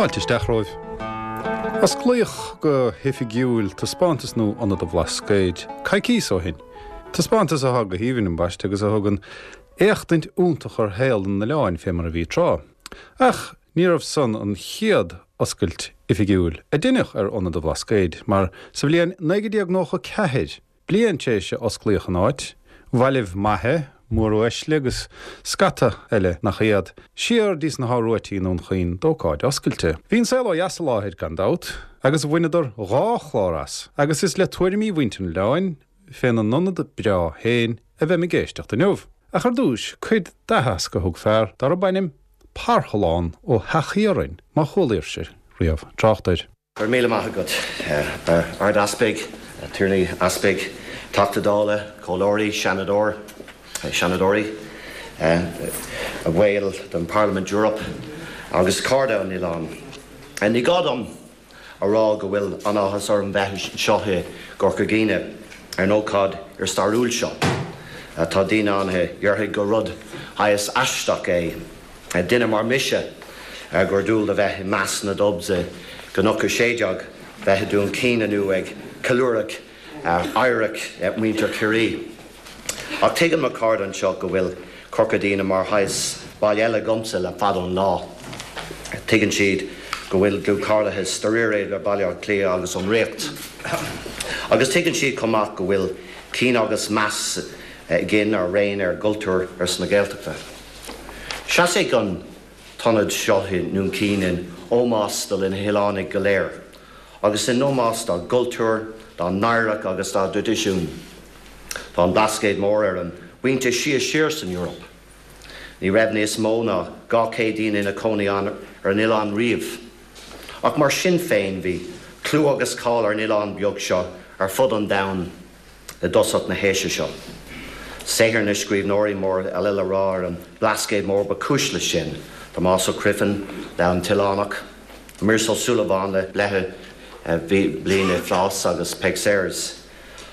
Fáilte isteach romhaibh. Osclaíodh go hoifigiúil taispeántas nua Ionad an Bhlascaoid coicíos ó shin. Taispeántas atá go haoibhinn ambaiste agus a thugann éachtaint iontach ar shaol an oileáin fé mar a bhí tráth. Ach ní raibh san an chéad oscailt oifigiúil a deineadh ar Ionad an Bhlascaoid mar sa bhliain 1994, Bliain tar éis a osclaíodh an áit, bhailigh maithe, móruaisle agus scata eile nach iad, siar dtí sna hÁth Ruaití i nDún Chaoin d'ócáid oscailte. Bhí an saol ó dheas i láthair gan dabht, agus bhaineadar dha chlár as, agus is le tuairimí mhuintir an oileáin féna n-ionad breá féin a bheim ag éisteacht inniu. Ach ar dtúis, cuid d'aitheasc a thug fear darb ainm Parthalán Ó hEachthiaráin, má chualaíbhse riamh trácht air. Go raibh míle maith agat, a Ard-Easpaig, a Thiarnaí Easpaig, Teachta Dála, Comhairleoirí, Seanadóir, Seanadóirí, a bhaill den Parliament Europe agus cairde an oileáin. Ní gá dom a rá go bhfuil an-áthas orm bheith anseo i gCorca Dhuibhne ar an ócáid fhíorstairiúil seo. Tá daoine ann a dhéarfaidh gur rud shaghas aisteach é Duine mar mise gur dual do bheith i measc na Dubs i gCnoc 16, bheith i Dún Chaoin inniu ag ceiliúradh oidhreacht muintir Chiarraí. Ach tuigeann mo chairde anseo go bhfuil Corca Dhuibhne mar shaghas baile eile agamsa le fada an lá. Tuigeann siad go bhfuil dlúthchairdeas dáiríre idir Baile Átha Cliath agus an Ríocht. Agus tuigeann siad chomh maith go bhfuil cion agus meas againn araon ar gcultúr ársa na Gaeltachta. Seasfaidh an t-ionad seo i nDún Chaoin in ómós do na hoileánaigh go léir agus in ómós dá gcultúr, dá n-oidhreacht agus dá dtraidisiún. Tá an Blascaod Mór ar an bpointe sia siar san Eoraip. Ní raibh níos mó ná 200 daoine ina cónaí ann ar an oileán riamh. Ach mar sin féin bhí clú agus cáil ar an oileán beag seo ar fud an domhain. i dtosach na haoise seo. Saothar na scríbhneoirí mór eile le rá ar an mBlascaod Mór ba chúis leis sin, Tomás Ó Criomhthain le An tOileánach, Muiris Ó Súilleabháin le Bleiche Bliain i bPlás agus Peig Sayers.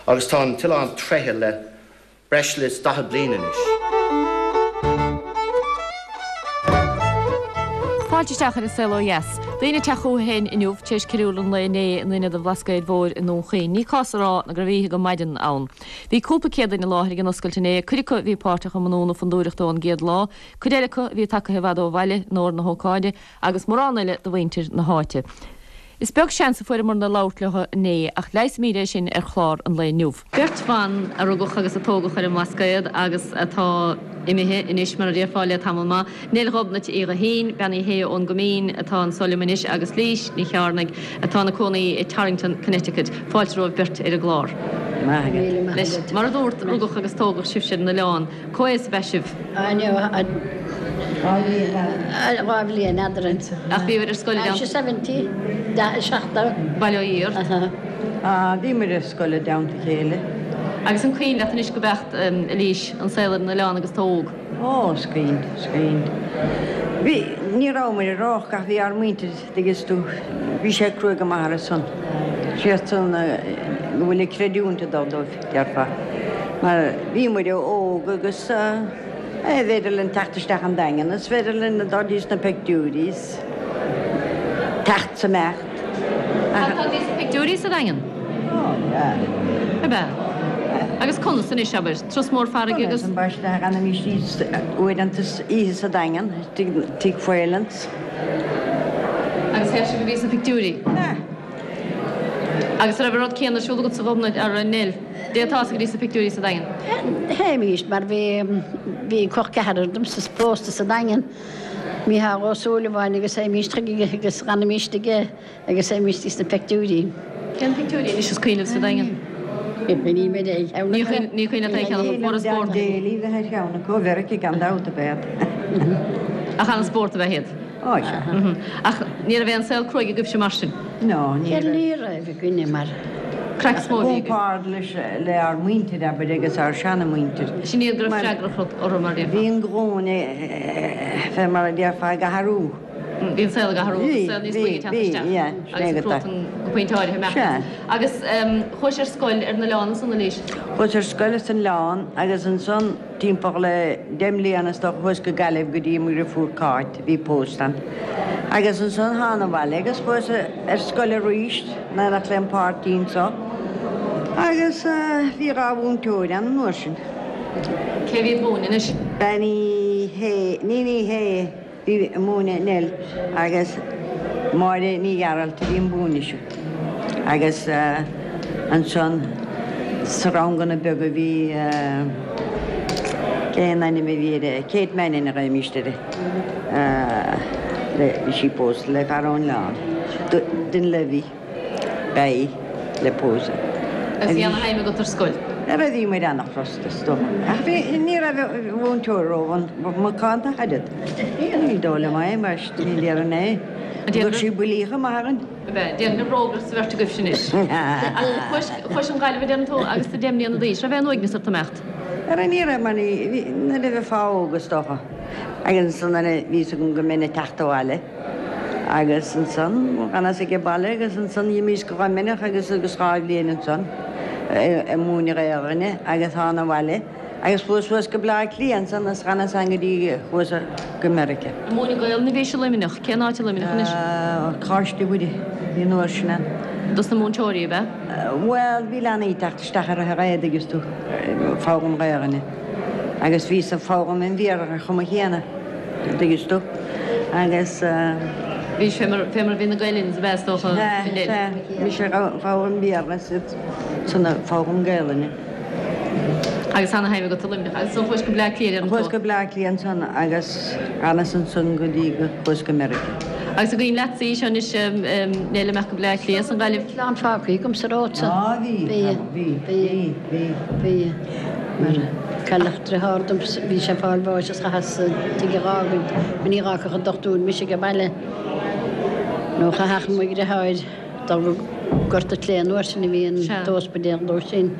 Agus tá an t-oileán tréigthe le breis is 40 bliain anois. Fáilte isteach ar An Saol Ó Dheas. Daoine ag teacht chucu féin inniu tar éis ceiliúradh an lae inné in Ionad an Bhlascaoid Mhóir i nDún Chaoin. Ní cás a rá ná go raibh oíche go maidin ann. Bhí cúpla céad duine i láthair ag an oscailt inné, cuid acu a bhí páirteach i mbunú na fondúireachta ón gcéad lá, cuid eile acu a bhí tagtha i bhfad ó bhaile in onóir na hócáide agus mórán eile de mhuintir na háite. Is beag seans a fuaireamarna labhairt leo inné ach leigheasfaimid é sin ar chlár an lae inniu. Beirt bhan a rugadh agus a tógadh ar an mBlascaod agus atá imithe anois, mar a déarfá, le tamall maith, Neil Ghobnait Uí Ghuithín, Bean Uí Shé ón gCoimín atá anso liom anois agus Lís Ní Chearnaigh atá ina cónaí i Torrington, Connecticut. Fáilte romhaibh beirt ar an gclár. Anois, mar a dúrt, rugadh agus tógadh sibhse ar an oileán. Cá haois ab ea sibh? Dhá bhliain eadrainn. Ach bhíobhair ar scoil i dteannta. 70, 70. Bail ó Dhia ort. Bhíomar ar scoil i dteannta a chéile. Agus an cuimhin leat anois go beacht, a Lís, an saol ar an oileán agus tú óg? Ó, is cuimhin, is cuimhin. Bhí, ní rabhamar i rách ach bhí ár muintir, dtuigeann tú, bhí sé cruaidh go maith orthu san. Siad san go bhfuil an creidiúint ag dul dóibh, déarfá. Mar bhí muid óg agus b'fhéidir linn teacht isteach an Daingean is féidir linn dul dtí sna pictiúirí is teacht is imeacht. Tá tú dtí sna pictiúirí sa Daingean? Ó, yeah. Ab ea? Agus conas anois, abair, turas mór farraige agus. Conas, ambaiste, d'fhanaimis uaireanta oíche sa Daingean, tigh Phelan's. Agus théadh sibh a bhí sna pictiúirí? Sea. Agus an raibh an rud céanna ar siúl agatsa a Ghobnait, a Neil? Dtéiteá go dtí sna pictiúirí sa Daingean? Théimís, mar bhí, bhí col ceathrar domsa pósta sa Daingean, Mícheál Ó Súilleabháin agus théimís chuige agus d'fhanaimis aige. Agus théimís dtí sna peictiúirí. Cén pictiúirí anois is cuimhin libh sa Daingean? Ní mé é cheann acu. Ní cuimhin leat aon cheann acu. Fuair an spórt. Dan Daly bheith ar cheann acu, Mheiriceá gan dabht ab ea iad. Ach an-spórt ab ea iad. Ó sea. Ach ní raibh aon saol cruaidh agaibhse mar sin? No, ní raibh. Ní raibh againne mar. Craic is mó a bhí agaibh. Compared leis, le ár muintir, abair, agus ár seana-mhuintir. Sin iad go raibh freagracht orthu mar a déarfá. Bhí an ghlúin, fé mar a déarfá, ag athrú. Bhí an saol ag athrú agus saol níos boige ag teacht isteach agus an cruatan go pointe áirithe imeacht. Agus chuais ar scoil ar an oileán ansan, a Lís? Chuas ar scoil san oileán agus ansan timpeall le deich mbliana is dócha chuas go Gaillimh go dtí mo dhriofúr Cáit a bhí pósta ann. Agus ansan thána abhaile agus chuas ar scoil arís in éineacht lem pháirtí anso agus bhí 2 mhúinteoir ann an uair sin. Cé a bhí ag múineadh anois? Bean Uí Shé, Níon Uí Shé a bhí ag múineadh Nell agus Máire Ní Ghearailt a bhí ag múineadh ise. Agus ansan sa ranganna beaga bhí, cén ainm a bhí uirthi, Kate Mannion a ghlaoimíst uirthi. Bhí sí pósta le fear ón oileán, Dunleavy, ba í le pósadh. Agus bhí ana-thaithí agat ar scoil? Ara bhí muid ana-chrosta is dócha. Ach bhí, ní raibh an mhúinteoir ró-mhacánta ach oiread. Ní dóigh liom é, mar ní déarfainn é. Thug sí buillí chomh maith orainn. Ab ea? Déarfainn gur bhrógairt sa bheirt agaibhse anois. Ach chuais chun Gaillimhe a deireann tú agus tú 10 mbliana d'aois. Raibh aon uaigneas ort imeacht? Ara ní raibh mar ní, bhí, nuair a bheifeá óg is dócha. Agus ansan nuair a bhí fhios agam go mbeinn ag teacht abhaile agus ansan dh'fhanas age baile agus ansan dh'imíos go Luimneach agus agus 2 bhliain ansan ag múineadh Gaelainne agus thána abhaile agus chuas suas go Bleá Cliath ansan is dh'fhanas ann go dtí chuas go Meiriceá. Ag múineadh Gaelainne a bhís i Luimneach. Cén áit i Luimneach anois? Coláiste Mhuire a bhí an uair sin ann. Dos na múinteoirí, ab ea? Bhuel, bhí leanaí ag teacht isteach ar an dtuigeann tú, foghlaim Gaelainne. Agus bhíos ag foghlaim an Bhéarla ar chuma chéanna, an dtuigeann tú, agus. Bhís fé mar, fé mar a bhí na Gael-Linns ab ea is dócha, Sea, sea, mise ag foghlaim Béarla is iadsan ag foghlaim Gaelainne. Agus ana-thaithí agat i Luimneach. Agus ansan chuais go Bleá Cliath, deireann tú. Chuas go Bleá Cliath ansan agus dh'fhanas ansan go dtí go chuas go Meiriceá. Agus an cuimhin leatsa í seo anois, Nell, imeacht go Bleá Cliath as an Ghaillimh? Clann fágtha agam sa ród san. Á bhí, bhí, bhí, bhí. Bhí. Mar cailleadh driotháir dom, bhí sé ag fáil bháis is chaitheas an tigh a dh'fhágaint, mar ní dh'fhágfadh an dochtúir mise age baile. Nó chaithfeadh mo dhriotháir dul go Gort a' tSléibhe an uair sin a bhí an t-ospidéal dó sin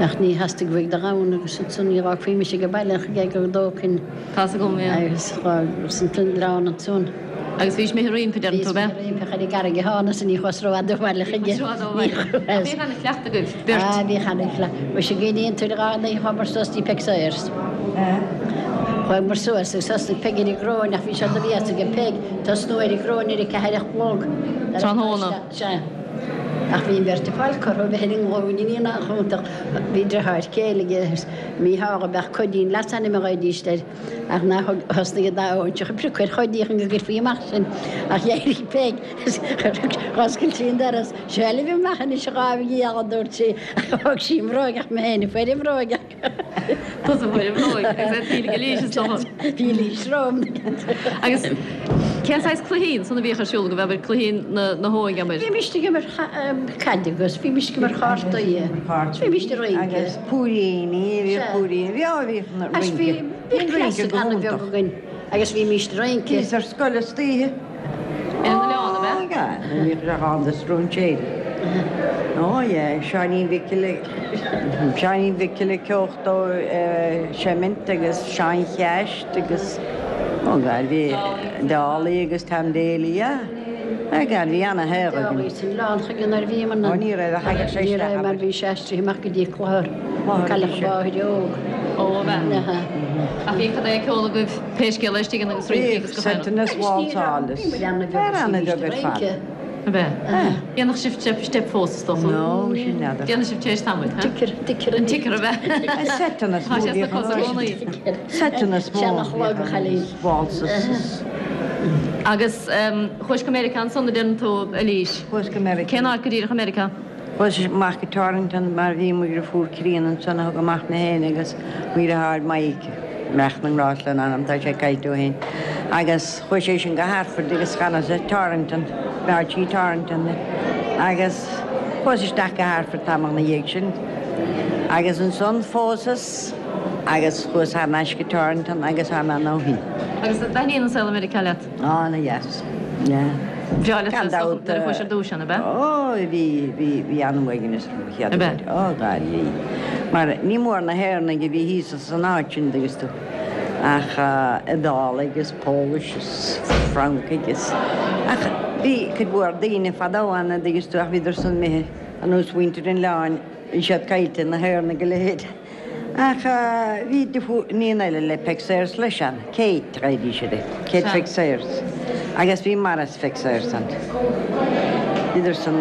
ach ní theastaigh uaidh dul ann agus ansan ní dh'fhágfaí mise age baile ach go dtógfainn Tá's agam, yeah. agus dh'fhágas an t-oileán ansan. Agus bhís imithe roimpi, deireann tú, ab ea? Bhíos imithe roimpi ach ar an gCarraig a thánas ní chuas rófhada abhaile chuige. Ní chuas rófhada abhaile. Ach bhíodh ana-chleachtadh agaibh, beirt. Ah, bhíodh ana-chleachtadh. Muise an gcuimhníonn tú ar an oíche chuamar suas dtí Peig Sayers. Chuamar suas agus thosnaigh Peig ar an gcróin ach bhí sé de bhéas aige Peig tosnú ar an gcróin ar a ceathair a chlog. Tráthnóna. Sea. Ach bhí an bheirt ag fáil cortha a bheith ar a nglúine ní nach iontach. Bhí driotháir céile aige, Mícheál ab ea Cóidín leasainm a ghlaoidíst air. Ach ná thug, thosnaigh an dá óinseach ag priocadh ar Chóidí chun go gcuirfí amach sinn, ach d'éirigh Peig is dh'oscail sí an doras. Seo libh amach anois a dhámh gheal, a dúirt sí, ach thóg sí an bhróig ach mé féin a fuair an bhróig. Tusa a fuair an bhróig agus é taoille ag Eilís is dócha. Bhí Eilís romham. Agus cén saghas cluichí ansan a bhíodh ar siúl agaibh, abair, cluichí na hóige, abair? Bhímist ag imirt caide agus bhímist ag imirt chártaí, bhímist ag rince. Agus púiríní, bhíodh púiríní, bhí, á bhíodh na rince. Bhí Bhí rince go an-bheag hiontach. againn agus bhímist ag rince. Bhíos ar scoil istoíche. Ar an oileán, ab ea? Á, bhíodh sé ann do stróinséirí. Ó, yeah, Seáinín Mhicil, Seáinín Mhicil ag ceochtó seimint agus Seán Cheaist agus, ó God, bhí Dálaí agus Tom Daly, yeah. Á God, bhí ana-shaol againn. Dálaí san oileán chuige nuair a bhíomar Ó, ní raibh a thagadh sé Ní isteach, raibh mar abair. bhí sé aistrithe amach go dtí Clochar, Clochar a Cailleadh bhí a sé. mháthair óg. Ó, ab ea? Ach bhí cad é ag ceol agaibh pé scéal é istigh ann agus rince agus Bhíodh seiteanna is válsáil is fear ana-bheag ar fad. Ab ea? Dhéanfadh sibh step step fós is dócha? No, sin n'fheadar. Déanann sibh tar éis tamaill, ha? Ticker, ticker. An ticker, ab ea? Seiteanna is Tá mó sé sna bhíodh cosa i gcónaí. Seiteanna is mó Seanach bhíodh a chailín. válsas is. Agus chuais go Meiriceá ansan a deireann tú, Eilís. Chuas go Meiriceá. Cén áit go díreach i Meiriceá? Chuas amach go Torrington mar bhí mo dhriofúr críonna ansan a thug amach mé féin agus mo dhriotháir Mike, beannacht na ngrást lena anam, tá sé caillte ó shin, agus chuaigh sé sin go Hartford agus d'fhanas i Torrington, b'áit í Torrington agus chuas isteach go Hartford tamall 'na dhiaidh sin agus ansan phósas agus chuas thar n-ais go Torrington agus tá mé ann ó shin. Agus an dtaitníonn an saol i Meiriceá leat? Ana-dheas, yeah. Bhreá leat Gan is dócha dabht. nuair a chuais ar dtúis ann, ab ea? Ó, bhí, bhí, bhí an-uaigneas orm an chéad Ab ea? uair. Ó, God, bhí. Mar ní mór na hÉireannaigh a bhí thíos san áit sin, dtuigeann tú, ach Iodálaigh is Polish is Francaigh is, ach bhí cuid mhór daoine fadó ann, a dtuigeann tú, ach bhíodar san imithe, ar nós mhuintir an oileáin, bhí siad caillte, na hÉireannaigh a leithéid. Ach bhí iníon eile le Peig Sayers leis ann, Kate, a ghlaoidís uirthi, Kate Pheig Sayers. Agus bhí Maurice Pheig Sayers ann. Bhíodar san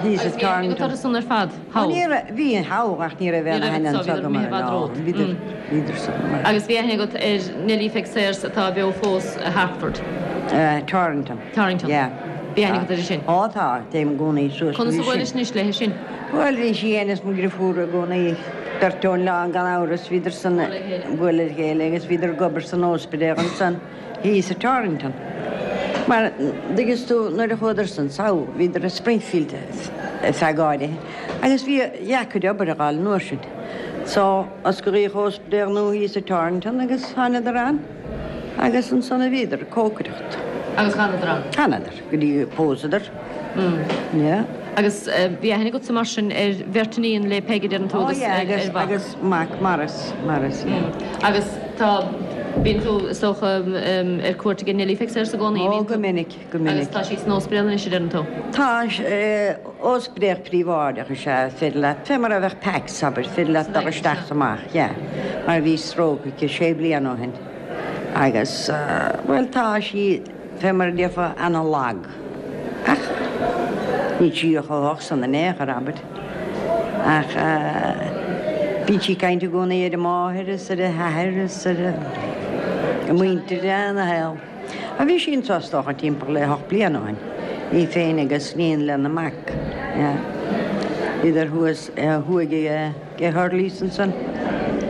thíos i Agus bhí aithne agat Torrington. orthu san ar fad, Ó thall? ní raibh, bhí thall ach ní raibh Ní aon raibh aithne anso, anso bhíodar agam imithe i orthu, bhfad no. romhat. Bhíodar, bhíodar san mar. Agus bhí aithne agat ar Nellie Pheig Sayers atá beo fós i Hartford? Torrington. Torrington. Yeah. Bhí aithne agat uirthi sin? Ó tá, téim i gcónaí suas Conas go a dtí sin. bhuailis anois léithi sin? Bhuel, bhí sí fhéin is mo dhriofúr i gcónaí, beirt ón oileán gan amhras, bhíodar san ag bualadh le chéile agus bhíodar ag obair san óspidéal ansan thíos i Torrington. Mar, dtuigeanns tú, nuair a chuadar san sall, bhíodar i Springfield ar feadh áirithe agus bhí deacair obair a fháil an uair sin. So, osclaíodh óspidéal nua thíos i Torrington agus thánadar ann. Agus ansan a bhíodar ag cócaireacht. Agus d'fhanadar ann? D'fhanadar, go dtí gur pósadar. Yeah. Agus bhí aithne agatsa mar sin ar bheirt iníon le Peig a deireann tú Oh agus yeah, ar agus, mhac. agus mac Maurice, Maurice, yeah. Agus tá, bíonn tú, is dócha, ar cuairt ag Nellie Pheig Sayers i gcónaí, Oh, bíonn go tú? minic, go minic. Agus tá sí san óspidéal anois a deireann tú? Tá, óspidéal príobháideach is ea, féidir leat, fé mar a bheadh Pax, abair, féidir leat dul isteach is amach, yeah, mar bhí stroke aici sé bliana ó shin agus, bhuel, tá sí, fé mar a déarfá, ana-lag. Ach níl sí chomh holc san in aon chor, abair. Ach bíonn sí ag caint i gcónaí ar a máthair is ar a hathair is ar a muintir, ana-shaol. A bhí sí anso is dócha timpeall le hocht bliana ó shin, í féin agus iníon lena mac. Bhíodar thuas thuaidh ag Hurley's ansan,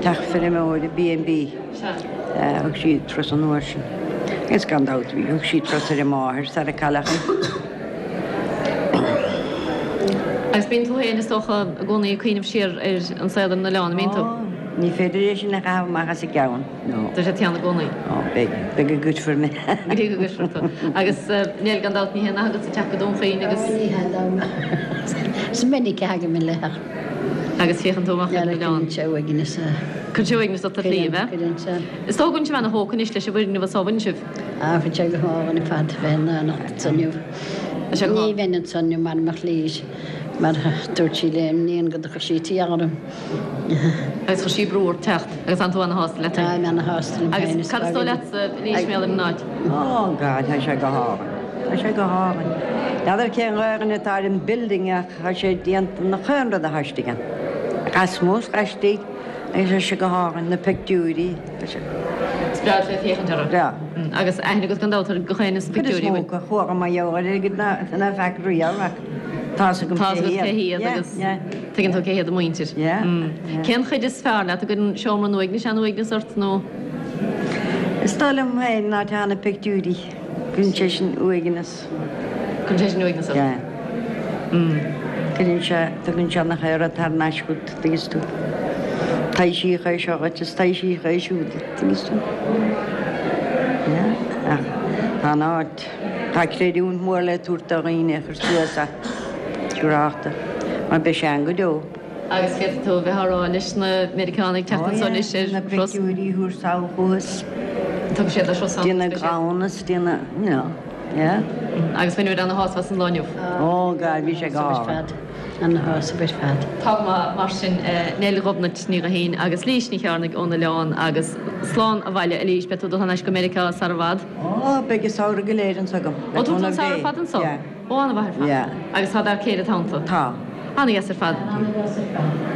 teach feirmeora B and B. Thug sí turas an uair sin. Agus gan dabht bhí, thug sí turas ar a máthair sara cailleadh í. Agus bíonn tú féin is dócha i gcónaí ag cuimhneamh siar ar an saol ar an oileán, an mbíonn tú? Ó, ní féidir é sin a chaitheamh amach as an gceann. No. Tá sé ann i gcónaí. Ó, beidh. Beidh go gcuirfear mé. Go dtí go gcuirfear tú. Agus Nell, gan dabht, ní haon nath agatsa teacht go Dún Chaoin agus. Ó, ní hea dom. Is minic a thagaim i leith ach. Agus féachann tú amach ar an oileán. Cuireann sé uaigneas. Cuireann sé uaigneas ort ar shlí, ab ea? Cuireann sé. Is dóigh go bhfuil sibh ana-thógtha anois leis an bhfoirgneamh anso, an bhfuil sibh? Á, bhí sé go hálainn ar fad bheith in ann anso inniu. Tá sé go Ní bheinn anso inniu mara mbeadh Lís, mar dúirt sí lem iníon go dtiocfadh sí tíocht orm. Agus chuir sí brú ort teacht agus tánn tú ana-shásta leat féin. Táim ana-shásta liom féin. Agus cad is dóigh leatsa a Lís mar gheall ar an áit? Oh God, tá sé go hálainn. Tá sé go hálainn. N'fheadar cén Ghaelainn atá ar an building ach tá sé déanta nach aon rud atá istigh ann. Lasmuigh is laistigh agus tá sé go hálainn, na pictiúirí, tá sé. Is breá leat féachaint orthu. Breá. Agus aithne agat gan dabht ar gach éinne sna Cuid is pictiúirí, mó bhfuil? acu, chuaigh mé ar airgead ná feac riamh ach tá's agam Tá's cé agat cé hiad. hiad agus Yeah, yeah. Tuigeann tú cé hiad a muintir. Yeah, yeah. Cén chuid is fearr leat? An gcuireann seomra an uaignis an-uaigneas ort nó? Is dóigh liom féin ná tá na pictiúirí. Cuireann sé sin uaigneas. Cuireann sé sin uaigneas ort? Yeah. Cuireann sé, tugann sé nach aon rud thar n-ais chugat, tuigeann tú. Taibhsíodh é seo dhuit is taibhsíodh é siúd duit, tuigeann tú. Yeah, ach tá an áit, tá creidiúint mhór le tabhairt do dhaoine a chuir suas é. Siúrálta, mar beidh sé ann go deo. Agus féadfaidh tú a bheith á rá leis na Meiriceánaigh teacht anso anois ar Na thuras. pictiúirí a thabhairt sall chughas. Tugann siad leis ansan. Dtí na gclann is dtí na, you know, yeah. Agus bhain muid ana-shásamh as an lá inniu. Oh God, bhí sé go hálainn. Ana-shásamh ar fad. Tá go maith mar sin, Neil Ghobnait Ní Ghuithín agus Lís Ní Chearnaigh ón oileán agus slán abhaile a Lís, beidh tú ag dul thar n-ais go Meiriceá sara bhfad. Ó, beidh an samhradh go léir anso agam. Ó, tá tú an samhradh ar fad anso? Yeah. Ó, an-mhaith ar fad. Yeah. Agus tá d'fhear céile i do theannta? Tá. An-dheas ar fad. An-dheas ar fad.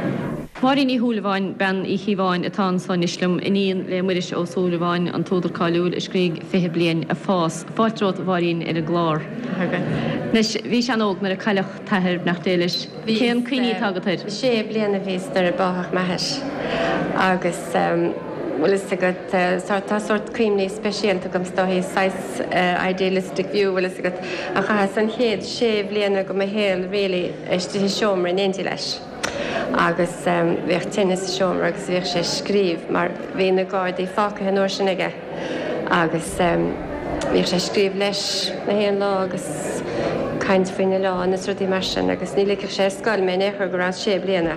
Máirín Ní Shúilleabháin, bean Uí Chíobháin, atá anso anois liom, iníon le Muiris Ó Súilleabháin, an t-údar cáiliúil a scrígh 20 Bliain ag Fás. Fáilte romhat, a Mháirín, ar an gclár. Anois, bhís an-óg nuair a cailleadh t'athair, beannacht Dé leis. Cén cuimhní atá agat air? Sé bliana a bhíos nuair a báthadh m'athair agus bhfuil fhios agat, tá sórt cuimhní speisialta agam is dóichí, saghas idealistic view, bhfuil fhios agat, ach chaitheas an chéad sé bhliana de mo shaol really istigh i seomra in éindí leis agus bhíodh tine sa seomra agus bhíodh sé ag scríobh mar bhí na Gardaí fágtha an uair sin aige agus bhíodh sé ag scríobh leis na haon lá agus caint faoin oileán is rudaí mar sin agus ní ligfeadh sé ar scoil mé in aon chor go rabhas sé bliana.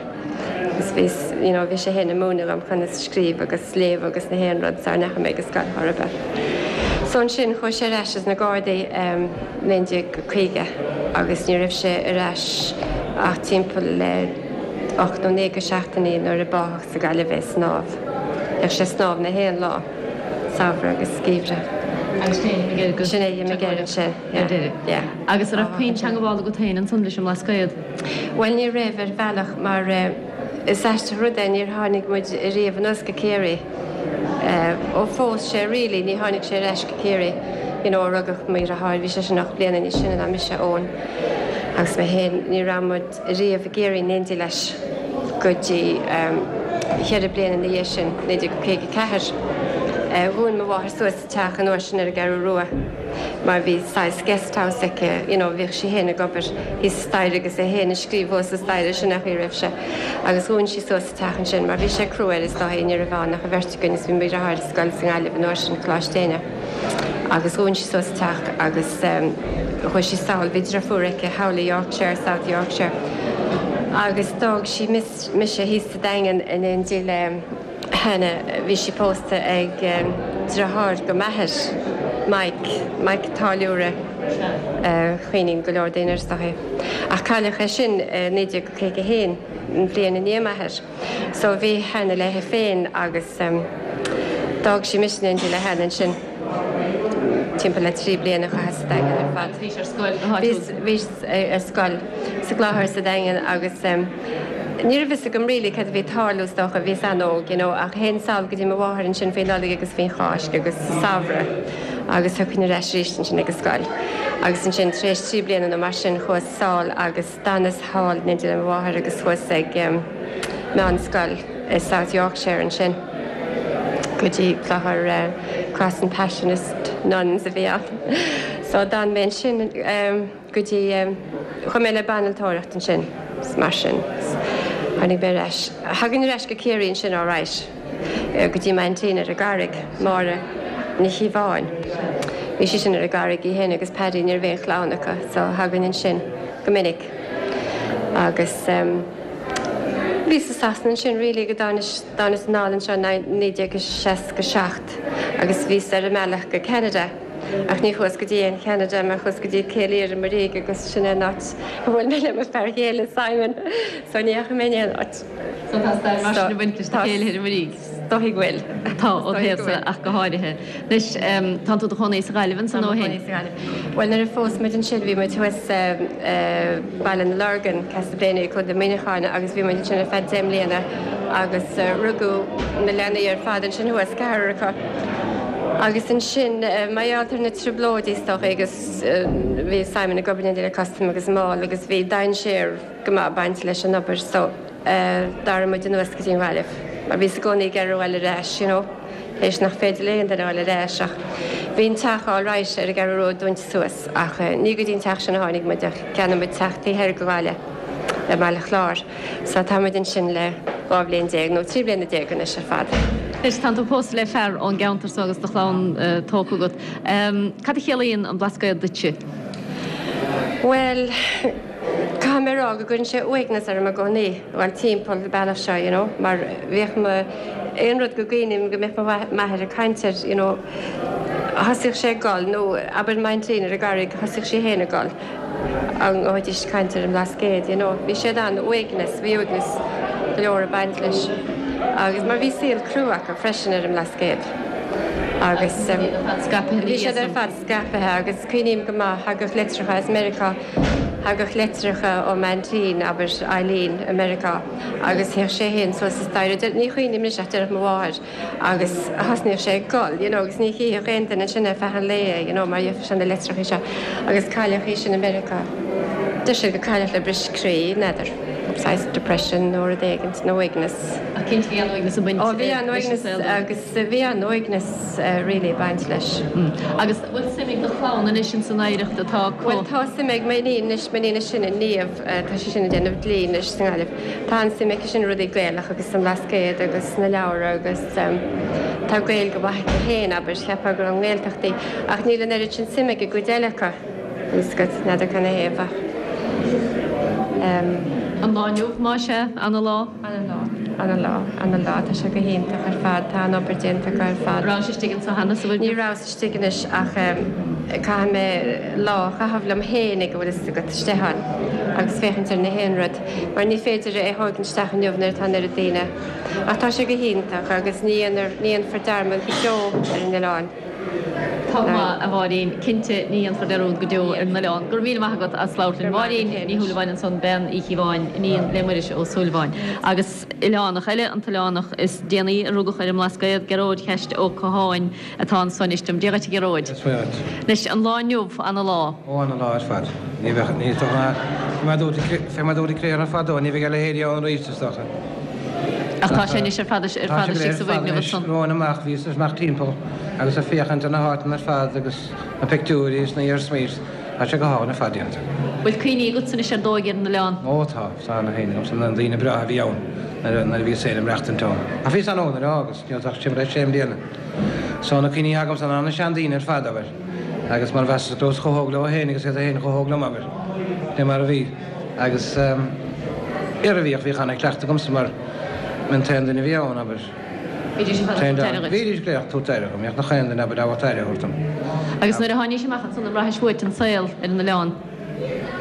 Agus bhí, you know, bhí sé féin ag múineadh dom conas scríobh agus léamh agus na haon rud sara ndeachaigh mé go scoil chor ar bith. So ansin chuaigh sé ar ais as na Gardaí em 1950 agus ní raibh sé ar ais ach timpeall le 8 nó 9 de seachtainí nuair a báthadh sa Gaillimh é ag snámh. Bhíodh sé ag snámh na haon lá, samhradh agus geimhreadh. Agus sin é d'imigh air go. Sin é d'imigh air ansin, yeah. Ar deireadh. Yeah. Agus an raibh puinn teangabhála agat féin ansan leis an mBlascaod? Bhuel ní raibh ar bhealach mar is aisteach rud é níor tháinig muid riamh anuas go Ciarraí. Ó phós sé really ní tháinig sé ar ais go Ciarraí you know ó rugadh mo dheartháir bhí seisean 8 bliana níos sine ná mise, Eoin agus mé féin ní raibh muid riamh i gCiarraí in éindí leis go dtí cheithre bliana ina dhiaidh sin, 1954. Dhún mo mháthair suas a teach an uair sin ar an gCeathrú Rua mar bhí saghas guest house aici you know bhíodh sí féin ag obair thíos sa staighre agus é féin ag scríobh thuas sa staighre sin an chaoi a raibh sé agus dhún sí suas a teach ansin mar bhí sé crua air is dóigh ní raibh ann ach an bheirt againn is bhí mo dheartháir ar scoil sa nGaillimh an uair sin, Coláiste Éinne. Agus dhún sí suas an teach agus chuaigh sí sall, bhí driofúr aici thall i Yorkshire, South Yorkshire, agus d'fhág sí mise thíos sa Daingean in éindí le Hannah, bhí sí pósta ag deartháir go m'athair, Mike, Mike Táilliúra, cuimhníonn go leor daoine air is dóichí. Ach cailleadh é sin i 1951, an bhliain i ndiaidh m'athair. So bhí Hannah léi féin agus d'fhág sí mise in éindí le Hannah ansin timpeall le 3 bliana a chaitheas sa Daingean ar fad. Agus bhís ar scoil go háitiúil? Bhíos ar scoil sa gClochar sa Daingean agus ní raibh fhios agam really cad a bhí ag tarlú is dócha, bhíos an-óg you know ach théinn sall go dtí mo mháthair ansin faoi Nollaig agus faoin Cháisc agus sa samhradh agus thiocfainn ar ais arís ansin ag an scoil. Agus ansin tar éis 3 bliana nó mar sin chuas sall agus. D'fhanas thall in éindí le mo mháthair agus chuas ag meánscoil i South Yorkshire ansin go dtí clochar Cross and Passionist Nuns a bhí ann. So d'fhan mé ansin go dtí, chuaigh mé le banaltóireacht ansin mar sin tháinig mé ar ais. Thagainn ar ais go Ciarraí ansin alright. go dtí m'aintín ar an gCarraig, Máire Ní Chíobháin. Bhí sí sin ar an gCarraig í féin agus Paddy, ní raibh aon chlann acu so thagainn ansin go minic. Agus bhíos i Sasana ansin really go dtáinis, dtáinis anall anseo in 1967 agus bhíos ar an mbealach go Ceanada ach ní chuas go dtí aon Cheanada mar chuas go dtí Cill Iartha Muirígh agus sin é an áit a bhfuil mé le mo fear chéile Simon so ní dheachaigh mé in aon áit. So tá stair mar sin ag baint leis na céilithe ar an Muirígh. Is dóigh go bhfuil. Tá, ó thaobhsa ach go háirithe. Anois, tánn tú i do chónaí sa Ghaillimh ansan ó shin? Tá mé i mo chónaí sa Ghaillimh. Bhuel, nuair a phós muid ansin bhí muid thuas i Baile na Lorgan, Castleblayney, Contae Mhuineacháin agus bhí muid ansin ar feadh 10 mbliana agus rugadh na leanaí ar fad ansin thuas, ceathrar acu. Agus ansin, mar gheall ar na trioblóidí is dócha agus bhí Simon ag obair in éindí le Custom agus Máil agus bhí dainséar, go maith baint leis an obair so d'athraigh muid anuas go dtí an Ghaillimh mar bhíos i gcónaí ag iarraidh a ghoil ar ais you know théis nach féidir le aon duine a ghoil ar ais ach bhí an teach alright ar an gCeathrú Rua dúnta suas ach ní go dtí an teach sin a tháinig muid ach cheannaigh muid teach taobh thoir de Ghaillimh i mBaile Chláir so tá muid ansin le 12 bhliain nó 13 bliana anois ar fad. Anois tánn tú pósta le fear ón gceantar so agus do chlann tógtha agat. Cad a chiallaíonn an Blascaod duitse? Bhuel. Caithfidh mé a rá go gcuireann sé uaigneas orm i gcónaí a ghoil timpeall an bealach seo, you know, mar bhíodh mo, aon rud go gcuimhním go mbeadh mo m'athair ag caint air, you know, thosaíodh sé ag gol, nó abair m'aintín ar an gCarraig, thosaíodh sí féin ag gol, an ngabhaidís ag caint ar an mBlascaod, you know. Bhí siad an-uaigneas, bhí uaigneas go leor ag baint leis agus mar bhí saol crua acu freisin ar an mBlascaod agus bhí siad ar fad scaipthe agus cuimhním go maith, thagadh litreacha as Meiriceá, thagadh litreacha ó m'aintín, abair, Eileen, i Meiriceá agus théadh sé féin suas an staighre, ní chuimhním anois ach déarfadh mo mháthair agus thosnaíodh sé ag gol, you know, agus ní chífeadh aon duine ansin ar feadh an lae é, you know, mar gheofadh sé na litreacha seo agus cailleadh í sin i Meiriceá. Deir siad gur cailleadh le bris croí, n'fheadar, saghas depression nó rud éigint, nó uaigneas. Ach cinnte bhí an-uaigneas ag baint Ó bhí an-uaigneas agus bhí an-uaigneas really ag baint leis. Agus an bhfuil suim ag do chlann anois ins an oidhreacht atá acu? Bhuel tá suim ag m'iníon anois, m'iníon is sine, Niamh, tá sí sin ag déanamh dlí anois sa nGaillimh. Tá an-suim aici sin i rudaí Gaelach agus san Bhlascaod agus sna leabhra agus tá Gaeilge mhaith aici féin, abair, cheapfá gur ón nGaeltacht í. Ach níl an oiread sin suim ag an gcuid eile acu, níl 's agat, n'fheadar cad 'na thaobh ach. An lá inniu, más ea, ana lá? Ana lá, ana lá, ana lá, tá sé go hiontach ar fad, tá an obair déanta acu ar fad. Rabhais istigh anso cheana sa bhfoirgneamh? Ní rabhas istigh anois ach caithfidh mé lá a chaitheamh liom fhéinig a bhfuil fhios agat istigh ann agus féachaint ar na haon rud mar ní féidir é a thógaint isteach inniu nuair atá an oiread daoine. Ach tá sé go hiontach agus ní dhéanfar dearmad go deo ar an oileán. Tá go maith, a Mháirín. Cinnte, ní dhéanfar dearúd go deo ar an oileán. Go raibh míle maith agat as labhairt linn. Máirín Ní Shúilleabháin ansan, bean Uí Chíobháin, iníon le Muiris Ó Súilleabháin. Agus oileánach eile, an t-oileánach is déanaí a rugadh ar an mBlascaod, Gearóid Cheaist Ó Catháin, atá anso anois liom. Dia dhuit a Ghearóid. Dia dhuit. Anois, an lá inniu, ana lá. Ó, ana lá ar fad. Ní bheadh, ní dócha ná, fé mar dúirt, fé mar dúirt Cléire fadó, ní bheidh a leithéidí ann arís, is dócha. Ach tá sé anois ar fad, ar fad istigh sa bhfoirgneamh ansan. Romhainn amach, bhíos amach timpeall agus ag féachaint ar na háiteanna ar fad agus na pictiúirí is na hiarsmaí, tá sé go hálainn ar fad déanta. Bhfuil cuimhní agatsa anois ar d'óige ar an oileán? Ó tá, tá ana chuimhne agamsa na daoine breátha a bhí ann nuair a bhíos féin ag maireachtaint ann. Ach bhíos an-óg nuair a fhágas, ní raibh ach timpeall ar sé mbliana. So na cuimhní agamsa ná na seandaoine ar fad, abair, agus mar mheasas go rabhas chomh hóg leo féin agus iad féin chomh hóg liom, abair, fé mar a bhí. Agus ar a bhíodh, bhíodh ana-chleachtadh agamsa mar b'in an t-aon duine a bhí ann, abair. Bhídís ar fad ag tabhairt aire dhuit. Bhídís go léir ag tabhairt aire dhom, bhíodh nach aon duine, abair, ábalta aire a thabhairt dom. Agus nuair a tháinís amach ansan an bhraithis uait an saol ar an oileán?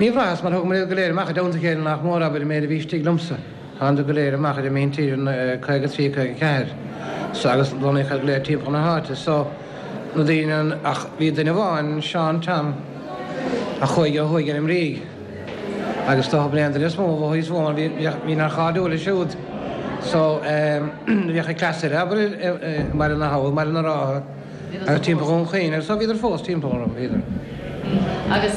Ní bhraitheas, mar thugamar iad go léir amach i dteannta a chéile nach mór, abair, an méid a bhí istigh liomsa. Thánadar go léir amach ar an míntír in 53, 54 so agus lonnaíodh iad go léir timpeall na háite so na daoine an ach bhí duine amháin, Seán Tom, a chuaigh ó thuaidh ar an mBrígh agus dócha b'in é an duine is mó a mhothaíos uaim mar bhí bhí nár chairdiúil leis siúd so bhíodh an cleas air abair i mBaile na hAbha, i mBaile na Rátha agus timpeall Dhún Chaoin agus so bhíodar fós timpeall orm, bhíodar. Agus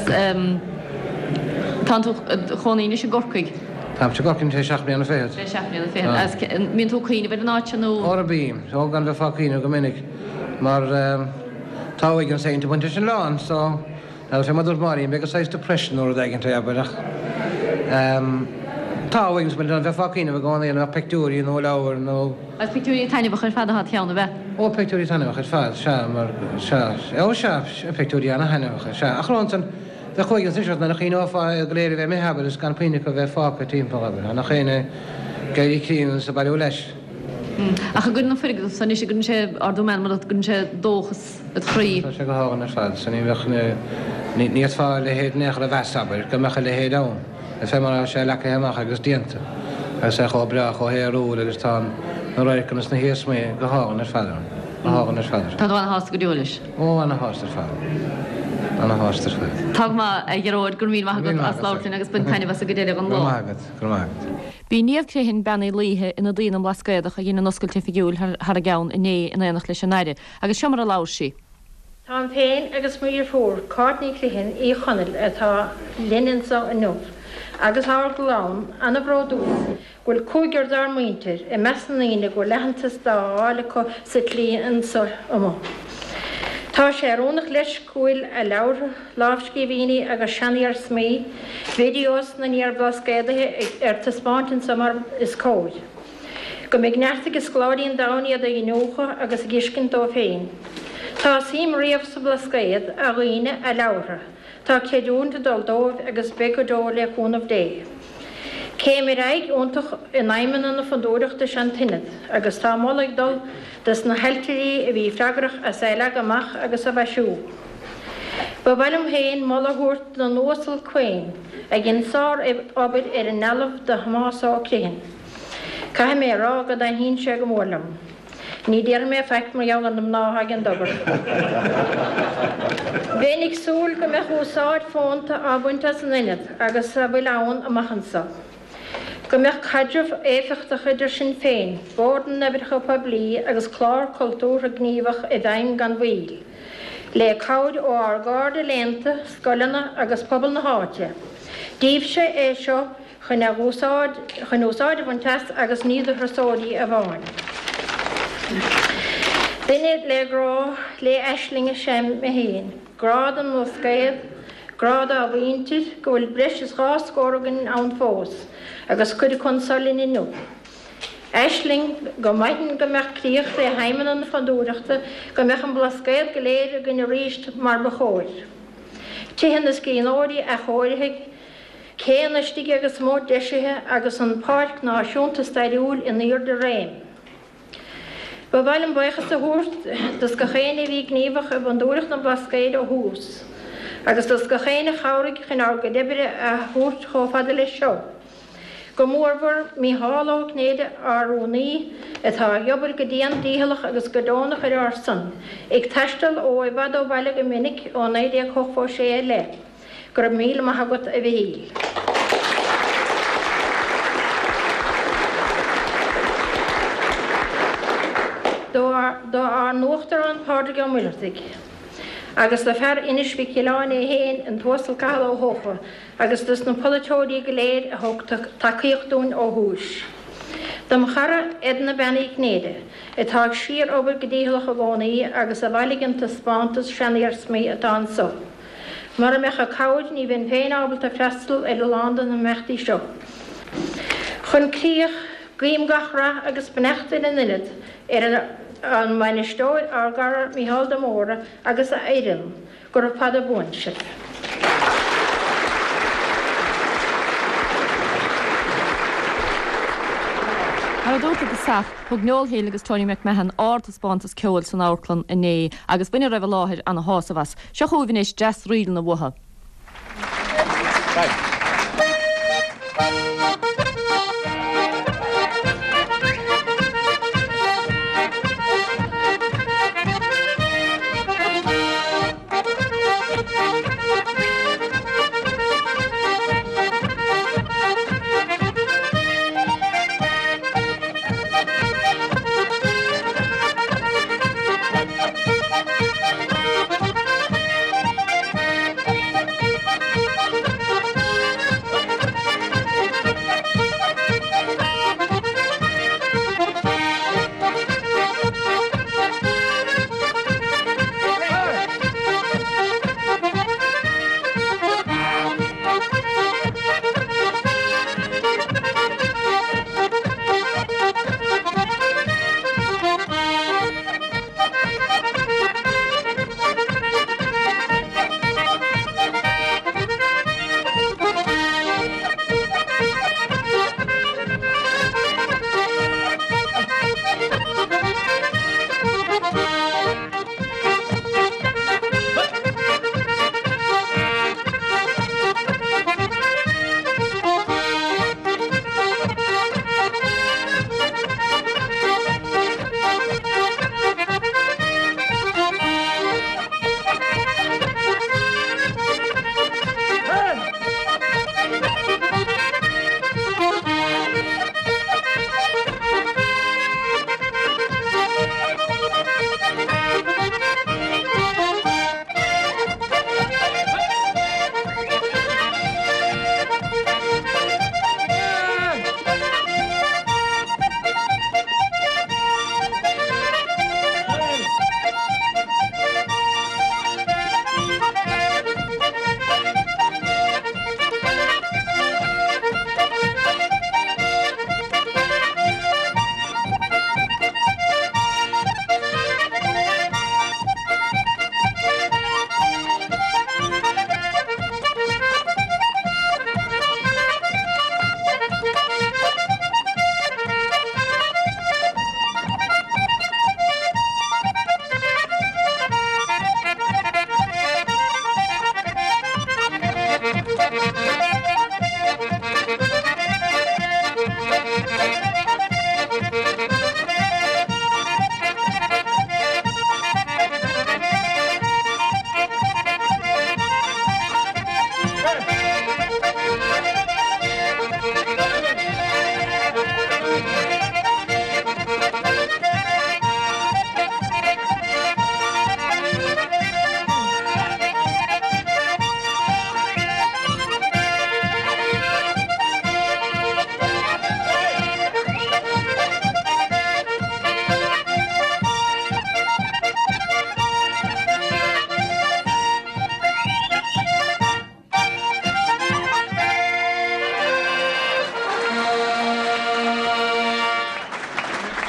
tánn tú id chónaí anois i gCorcaigh? Táimse i gCorcaigh anois le seacht mbliana fichead. Le seacht mbliana fichead. Agus an mbíonn tú ag cuimhneamh ar an áit seo nó? Óra bím. Ó gan bheith ag cuimhneamh go minic mar tá uaigneas éigint ag baint leis an oileán so Now fé mar dúirt Máirín, b'fhéidir saghas depression nó rud éigint é, abair, ach tá uaigneas ag baint leis, bheifeá ag cuimhneamh i gcónaí an mbeadh pictiúirí nó leabhair nó. Agus pictiúirí taitneamhacha ar fad atá id cheann, ab ea? Ó, pictiúirí taitneamhacha ar fad, sea, mar, sea, ó sea, pictiúirí ana-thaitneamhacha, sea. Ach ansan, bheadh uaigneas anois ort nuair a chuimhneofá iad go léir a bheith imithe, abair, is gan puinn acu a bheith fágtha timpeall, abair, nach éinne ag éirí críonna is ag bailiú leis. Ach an gcuireann an foirgneamh so anois, an gcuireann sé ardú meanman ort, an gcuireann sé dóchas id chroí. Tá sé go hálainn ar fad. So ní bheadh, ní fhéadfá a leithéid in aon chor a mheas, abair, go mbeadh a leithéid ann. Is fé mar atá sé leagtha amach agus déanta, agus é chomh breá, chomh haerúil agus tá na radharcanna is na hiarsmaí go hálainn ar fad ann. Go hálainn ar fad. Tá tú ana-shásta go deo leis? Ó, ana-shásta ar fad. Ana-shásta ar fad. Tá go maith, a Ghearóid, go raibh míle maith agat as labhairt linn agus bain taitneamh as an gcuid eile den lá. Go raibh maith agat, go raibh maith agat. B'í Niamh Criomhthain, Bean Uí Laoithe, ionadaí na mBlascaodach a dhein an oscailt oifigiúil thar a gceann inné in éineacht leis an Aire, agus seo mar a labhair sí. Táim féin agus mo dheirfiúr, Cáit Ní Chriomhthain, Uí Chonaill, atá linn anso inniu, agus ár gclann, ana-bhródúil go bhfuil cúigear dár muintir i measc na ndaoine go bhfuil aitheantas dá fháil acu sa tslí anso amuigh. Tá sé oiriúnach leis go bhfuil a leabhartha, lámhscríbhinní agus seaniarsmaí, videos na n-iar-Bhlascaodaithe ar taispeáint anso mar is cóir. Go mbeidh neart ag scoláirí an domhain iad a iniúchadh agus a dh'fheiscint dóibh féin. Tá suim riamh sa Bhlascaod, a dhaoine, a leabhartha. Tá creidiúint ag dul dóibh agus beidh go deo le cúnamh Dé. Céim ar aghaidh iontach in aidhmeanna na Fondúireachta is ea an tIonad agus tá moladh ag dul dos na hailtirí a bhí freagrach as é a leagadh amach agus a mhaisiú. Ba mhaith liom féin moladh a thabhairt don Uasal Quane a dhein sár-obair ar an ndealbh de Thomás Ó Criomhthain. Caithfidh mé a rá go dtaitníonn sé go mór liom. Ní déarfaidh mé faic mar gheall ar na mná atá ag an obair. Bheinn ag súil go mbeadh úsáid fónta á baint as an ionad agus a bhfuil ann amach anso. Go mbeadh caidreamh éifeachtach idir sinn féin, Bord na nOibreacha Poiblí agus clár cultúrtha gníomhach i bhfeidhm gan mhoill. Le cabhair ó ár gcairde léannta, scoileanna agus pobal na háite. Díbhse é seo chun a úsáid chun úsáid a bhaint as agus ní do thurasóirí amháin. Duine le grá le aisling is ea mé féin. Grá don mBlascaod, grá dá mhuintir, go bhfuil breis is dha scór againn ann fós, agus cuid acu anso linn inniu. Aisling, go maithfinn go mbeadh críoch le haidhmeanna na Fondúireachta, go mbeadh an Blascaod go léir againn arís mar ba chóir. Tithe na scríbhneoirí athchóirithe, céanna istigh agus amuigh deisithe agus an Pháirc Náisiúnta Stairiúil in airde réim. Ba mhaith liom buíochas a thabhairt dos gach éinne a bhí gníomhach i bhFondúireacht na Blascaoid ó thús, agus dos gach éinne a chabhraigh chun ár gcuid oibre a thabhairt chomh fada leis seo. Go mórmhór Mícheál Ó Cinnéide, ár rúnaí, atá ag obair go dian dícheallach agus go deonach ar ár son, ag taisteal ó i bhfad ó bhaile go minic ó 1986 i leith. Go raibh míle maith agat, a Mhichíl. Do ár n-Uachtarán Pádraig Ó Muircheartaigh agus do fear Inis Mhic Giolláin é féin, an tUasal Cathal Ó hEocha, agus dos na polaiteoirí go léir a thug tacaíocht dúinn ó thús. Dom chara Edna Bean Uí Chinnéide, atá ag síor-obair go dícheallach i gcónaí agus a bhailigh an taispeántas seaniarsmaí atá anso. Mura mbeadh a cabhair ní bheinn féin ábalta freastal ar a lán de na himeachtaí seo. Chun críoch, guím gach rath agus beannacht ar an Ionad, ar an mbainisteoir, ár gcara Mícheál de Mórdha agus a fhoireann, Gura fada buan sibh. Mar a dúrt i dtosach, thug Noel Hill agus Tony McMahon ardtaispeántas ceoil san amharclann inné agus bhain a raibh i láthair ana-shásamh as. Seo chugaibh anois dreas-ríleanna uathu.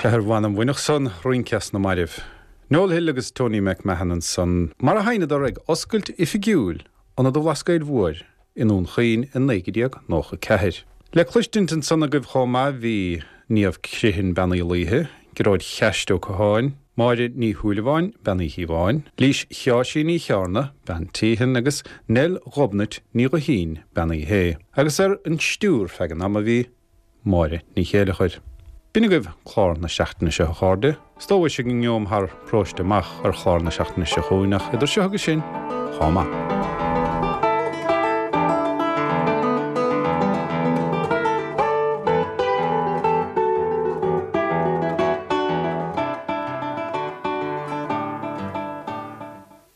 Sea, ar mh'anam bhainfeadh san rince as na mairbh. Noel Hill agus Tony McMahon ansan, mar a sheinneadar ag oscailt oifigiúil Ionad an Bhlascaoid Mhóir i nDún Chaoin i 1994. Le cloistint ansan agaibh chomh maith bhí Niamh Criomhthain Bean Uí Laoithe, Gearóid Cheaist Ó Catháin, Máire Ní Shúilleabháin, Bean Uí Chíobháin, Lís Sheáirsí Ní Chearna, Bean Teehan agus Nell Ghobnait Ní Ghuithín, Bean Uí Shé. Agus ar an stiúir feadh an ama bhí. Máire Ní Chéileachair. B'in agaibh clár na seachtaine seo a chairde. 'S tomhais ag an ngeom thar paróiste amach ar chlár na seachtaine seo chugainn ach idir seo agus sin, chomh maith.